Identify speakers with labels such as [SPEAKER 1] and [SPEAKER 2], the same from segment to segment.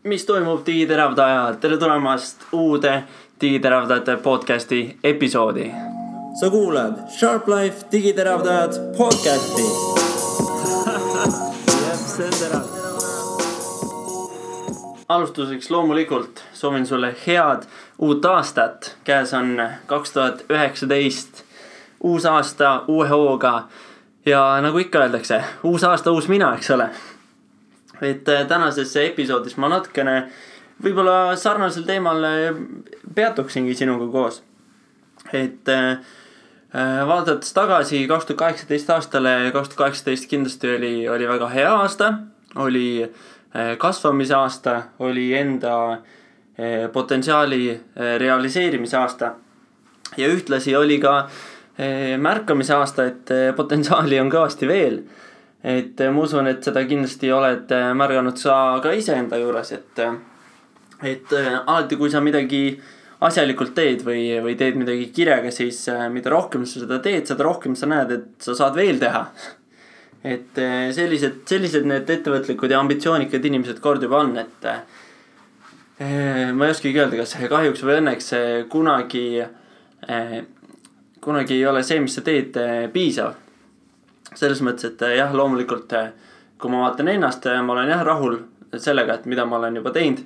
[SPEAKER 1] mis toimub digiteravdajad, tere tulemast uude digiteravdajate podcasti episoodi.
[SPEAKER 2] Sa kuulad Sharp Life digiteravdajad podcasti.
[SPEAKER 1] See on terav. Alustuseks loomulikult soovin sulle head uut aastat. Käes on 2019, uus aasta uue hooga ja nagu ikka öeldakse, uus aasta uus mina, eks ole. Et tänases episoodis ma natukene võib-olla sarnasel teemal peatuksingi sinuga koos. Et vaadates tagasi 2018 aastale, 2018 kindlasti oli väga hea aasta, oli kasvamise aasta, oli enda potentsiaali realiseerimise aasta ja ühtlasi oli ka märkamise aasta, et potentsiaali on kõvasti veel. Et ma usun, et seda kindlasti oled märganud sa ka iseenda juures, et alati kui sa midagi asjalikult teed või teed midagi kirjaga, siis mida rohkem sa seda teed, seda rohkem sa näed, et sa saad veel teha. Et sellised need ettevõtlikud ja ambitsioonikad inimesed kord juba on, et ma ei oskagi öelda, kas kahjuks või õnneks kunagi ei ole see, mis sa teed, piisav. Selles mõttes, et jah, loomulikult kui ma vaatan ennast, ma olen jah rahul sellega, et mida ma olen juba teinud.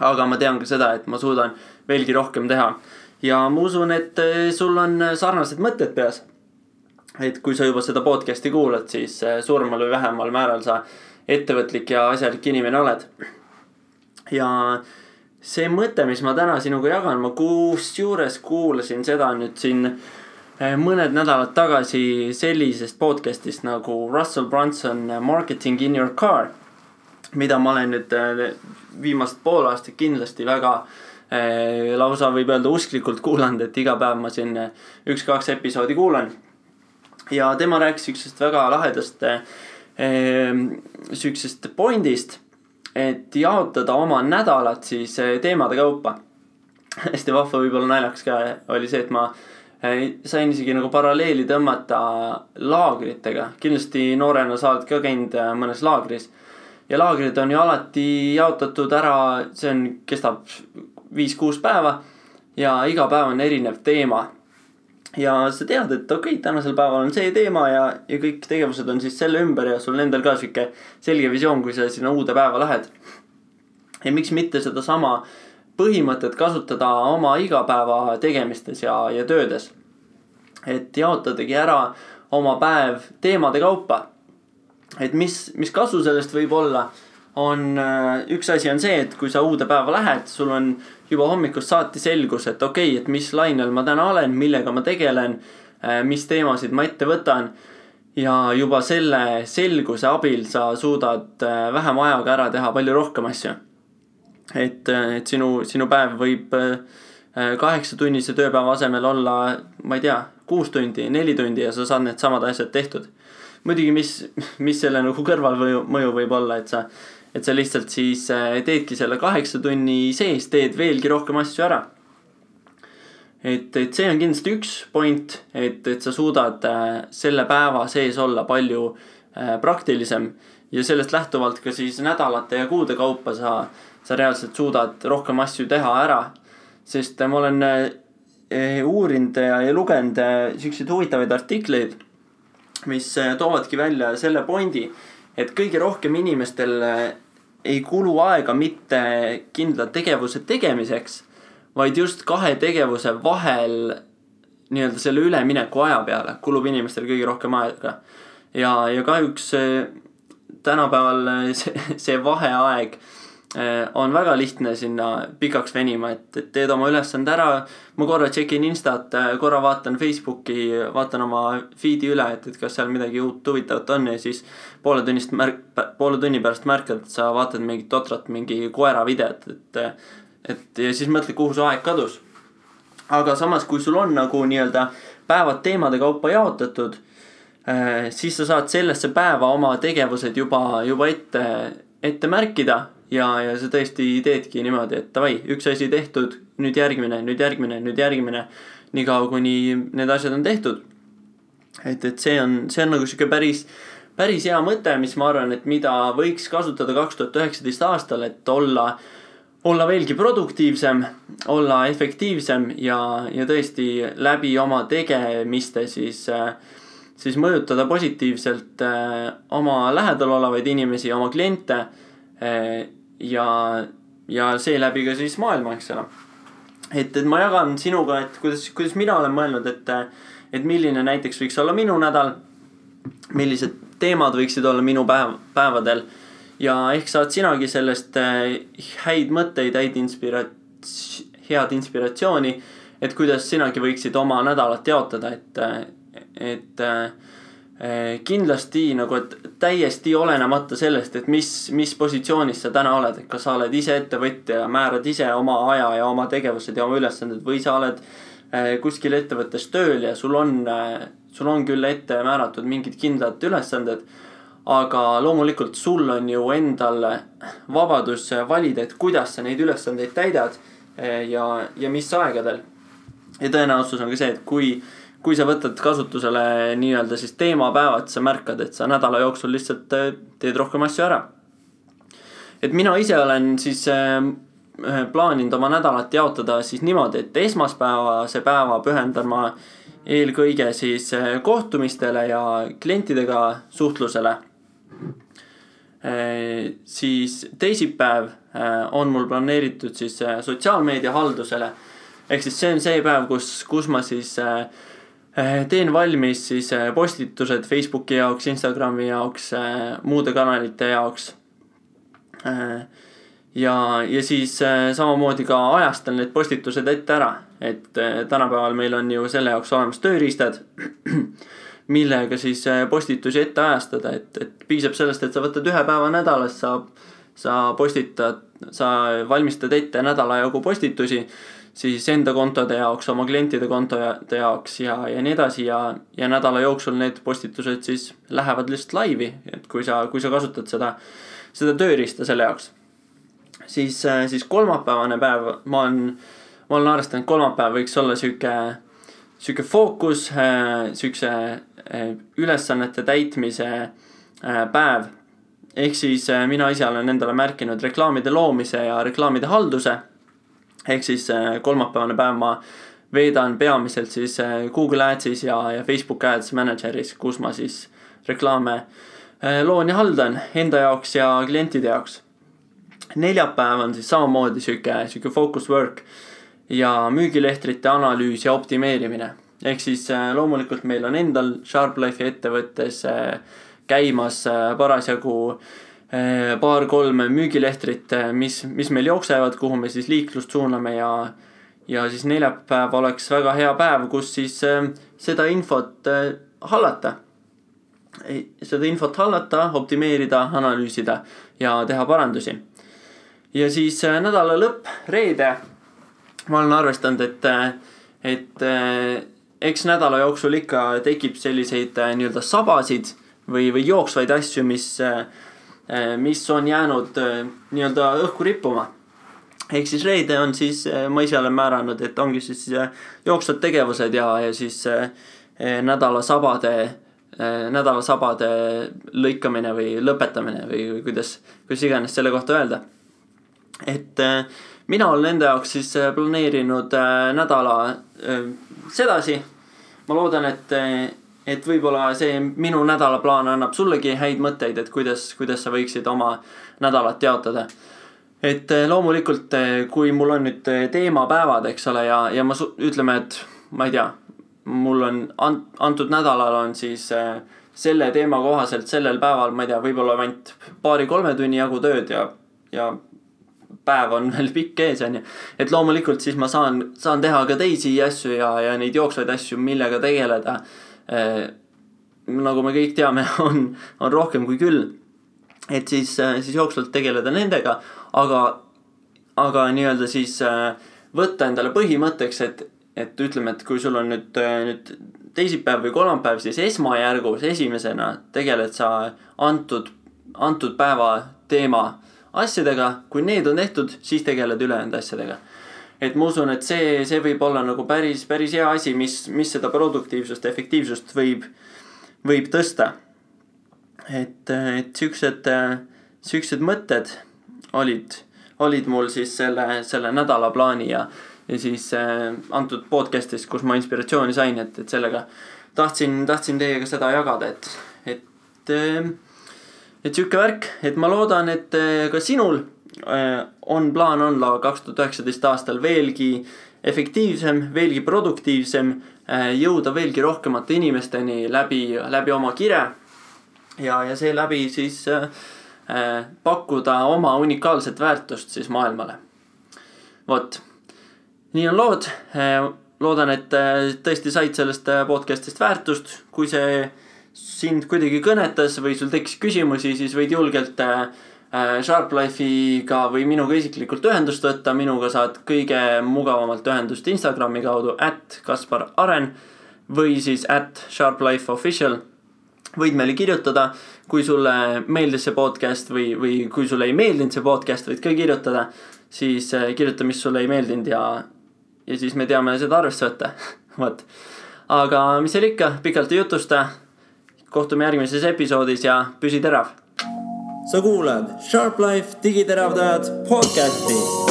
[SPEAKER 1] Aga ma tean ka seda, et ma suudan veelgi rohkem teha. Ja ma usun, et sul on sarnased mõtted peas. Et kui sa juba seda podcasti kuulad, siis suuremal või vähemal määral sa ettevõtlik ja asjalik inimene oled. Ja see mõte, mis ma täna sinuga jagan, ma kusjuures kuulasin seda nüüd siin mõned nädalad tagasi sellisest podcastist nagu Russell Brunson Marketing in your car, mida ma olen nüüd viimast pool aastat kindlasti väga lausa võib öelda usklikult kuulanud, et iga päev ma siin 1-2 episoodi kuulan. Ja tema rääkis üksest väga lahedast süksest pointist, et jaotada oma nädalat siis teemade kaupa. Hästi vahva võib-olla naljakas ka oli see, et ma sain isegi nagu paralleeli tõmmata laagritega. Kindlasti noorena sa oled ka käinud mõnes laagris. Ja laagrid on ju alati jaotatud ära, kestab 5-6 päeva ja iga päev on erinev teema. Ja sa tead, et okei, tänasel päeval on see teema ja kõik tegevused on siis selle ümber ja sul endal ka siuke selge visioon, kui sa sinna uude päeva lähed. Ja miks mitte seda sama põhimõtet kasutada oma igapäeva tegemistes ja töödes. Et jaotadagi ära oma päev teemade kaupa. Et mis kasu sellest võib olla, üks asi on see, et kui sa uude päeva lähed, sul on juba hommikust saati selgus, et okei, et mis lainel ma täna olen, millega ma tegelen, mis teemasid ma ette võtan. Ja juba selle selguse abil sa suudad vähem ajaga ära teha palju rohkem asju. Et sinu päev võib 8-tunnise tööpäeva asemel olla, ma ei tea, 6 tundi, 4 tundi ja sa saad need samad asjad tehtud. Muidugi, mis selle nagu kõrvalmõju võib olla, et sa lihtsalt siis teedki selle 8 tunni sees, teed veelgi rohkem asju ära. Et see on kindlasti üks point, et sa suudad selle päeva sees olla palju praktilisem ja sellest lähtuvalt ka siis nädalate ja kuude kaupa sa reaalselt suudad rohkem asju teha ära, sest ma olen uurinud ja lugenud selliseid huvitavaid artikleid, mis toovadki välja selle pointi, et kõige rohkem inimestel ei kulu aega mitte kindla tegevuse tegemiseks, vaid just 2 tegevuse vahel nii-öelda selle ülemineku aja peale kulub inimestel kõige rohkem aega. Ja kahjuks tänapäeval see vaheaeg on väga lihtne sinna pikaks venima, et teed oma ülesande ära, ma korra tšekin Instat, korra vaatan Facebooki, vaatan oma feedi üle, et kas seal midagi uut huvitavat on ja siis poole tunni pärast märkad, et sa vaatad mingit totrat, mingi koera videot, et ja siis mõtled, kuhu su aeg kadus. Aga samas, kui sul on nagu nii-öelda päevad teemade kaupa jaotatud, siis sa saad sellesse päeva oma tegevused juba ette märkida ja sa tõesti teedki niimoodi, et davai, üks asi tehtud, nüüd järgmine, nii kaua kuni need asjad on tehtud. Et see on nagu siuke päris päris hea mõte, mis ma arvan, et mida võiks kasutada 2019 aastal, et olla veelgi produktiivsem, olla efektiivsem ja tõesti läbi oma tegemiste siis mõjutada positiivselt oma lähedal olevaid inimesi, oma kliente ja seeläbi ka siis maailma, eks ole. Et ma jagan sinuga, et kuidas mina olen mõelnud, et milline näiteks võiks olla minu nädal, millised teemad võiksid olla minu päevadel ja ehk saad sinagi sellest häid mõtteid, head inspiratsiooni, et kuidas sinagi võiksid oma nädalat jaotada, et kindlasti nagu, et täiesti olenemata sellest, et mis positsioonis sa täna oled, et kas sa oled ise ettevõtja ja määrad ise oma aja ja oma tegevused ja oma ülesanded või sa oled kuskil ettevõttes tööl ja sul on küll ette määratud mingid kindlad ülesanded, aga loomulikult sul on ju endal vabadus valida, et kuidas sa neid ülesandeid täidad ja mis aegadel. Ja tõenäosus on ka see, et kui sa võtad kasutusele nii-öelda siis teemapäevad, sa märkad, et sa nädala jooksul lihtsalt teed rohkem asju ära. Et mina ise olen siis plaaninud oma nädalat jaotada siis niimoodi, et esmaspäevase päeva pühendan ma eelkõige siis kohtumistele ja klientidega suhtlusele. Siis teisipäev on mul planeeritud siis sotsiaalmeedia haldusele. Ehk siis see on see päev, kus ma siis teen valmis siis postitused Facebooki jaoks, Instagrami jaoks, muude kanalite jaoks. Ja siis samamoodi ka ajastan need postitused ette ära, et tänapäeval meil on ju selle jaoks olemas tööriistad, millega siis postitusi ette ajastada, et piisab sellest, et sa võtad ühe päeva nädalas, sa valmistad ette nädala jagu postitusi, siis enda kontode jaoks, oma klientide kontode jaoks ja nii edasi ja nädala jooksul need postitused siis lähevad lihtsalt laivi, et kui sa kasutad seda tööriista selle jaoks. Siis kolmapäevane päev, ma olen arvestanud, kolmapäev võiks olla süke fookus, sükse ülesannete täitmise päev. Ehk siis mina ise olen endale märkinud reklaamide loomise ja reklaamide halduse. Ehk siis kolmapäevane päev ma veedan peamiselt siis Google Adsis ja Facebook Ads Manageris, kus ma siis reklaame loon ja haldan enda jaoks ja klientide jaoks. Neljapäev on siis samamoodi süke focus work ja müügilehtrite analüüs ja optimeerimine. Ehk siis loomulikult meil on endal SharpLife'i ettevõttes käimas parasjagu 2-3 müügilehtrit, mis meil jooksevad, kuhu me siis liiklust suuname ja siis neljapäev oleks väga hea päev, kus siis seda infot hallata. Optimeerida, analüüsida ja teha parandusi. Ja siis nädala lõpp, reede, ma olen arvestanud, et eks nädala jooksul ikka tekib selliseid nii-öelda sabasid või jooksvaid asju, mis on jäänud nii-öelda õhku rippuma. Ehk siis reede on siis, ma ise olen määranud, et ongi siis jooksvad tegevused ja siis nädala sabade lõikamine või lõpetamine või kuidas iganes selle kohta öelda. Et mina olen enda jaoks siis planeerinud nädala sedasi. Ma loodan, et võib-olla see minu nädalaplaan annab sullegi häid mõtteid, et kuidas sa võiksid oma nädalat jaotada. Et loomulikult, kui mul on nüüd teemapäevad, eks ole, ja ütleme, et ma ei tea, mul on antud nädalal on siis selle teema kohaselt sellel päeval, ma ei tea, võib-olla ainult 2-3 tunni jagu tööd ja päev on veel pikk ees, on ju. Et loomulikult siis ma saan teha ka teisi asju ja neid jooksvaid asju, millega tegeleda. Nagu me kõik teame, on rohkem kui küll. Et siis jooksvalt tegeleda nendega, aga nii-öelda siis võtta endale põhimõtteks, et ütleme, et kui sul on nüüd teisipäev või kolmapäev, siis esmajärgus esimesena tegeled sa antud päeva teema asjadega, kui need on tehtud, siis tegeled ülejäänud asjadega. Et ma usun, et see võib olla nagu päris hea asi, mis seda produktiivsust, efektiivsust võib tõsta. et siuksed mõtted olid mul siis selle nädala plaani ja siis antud podcast'is, kus ma inspiratsiooni sain, et sellega tahtsin teiega seda jagada, et siuke värk, et ma loodan, et ka sinul on plaan olla 2019 aastal veelgi efektiivsem, veelgi produktiivsem, jõuda veelgi rohkemate inimesteni läbi oma kire ja seeläbi siis pakkuda oma unikaalset väärtust siis maailmale. Vot, nii on lood. Loodan, et tõesti said sellest podcastist väärtust. Kui see sind kuidagi kõnetas või sul tekkis küsimusi, siis võid julgelt Sharplife'iga või minuga isiklikult ühendust võtta. Minuga saad kõige mugavamalt ühendust Instagrami kaudu @KasparAren või siis @SharpLifeOfficial. Võid meile kirjutada, kui sulle meeldis see podcast või kui sulle ei meeldinud see podcast, võid ka kirjutada. Siis kirjuta, mis sulle ei meeldinud ja siis me teame seda arvesse võtta. Võt. Aga mis seal ikka, pikalt ei jutusta. Kohtume järgmises episoodis ja püsi terav.
[SPEAKER 2] Sa kuulad Sharp Life digiteravdajad podcasti.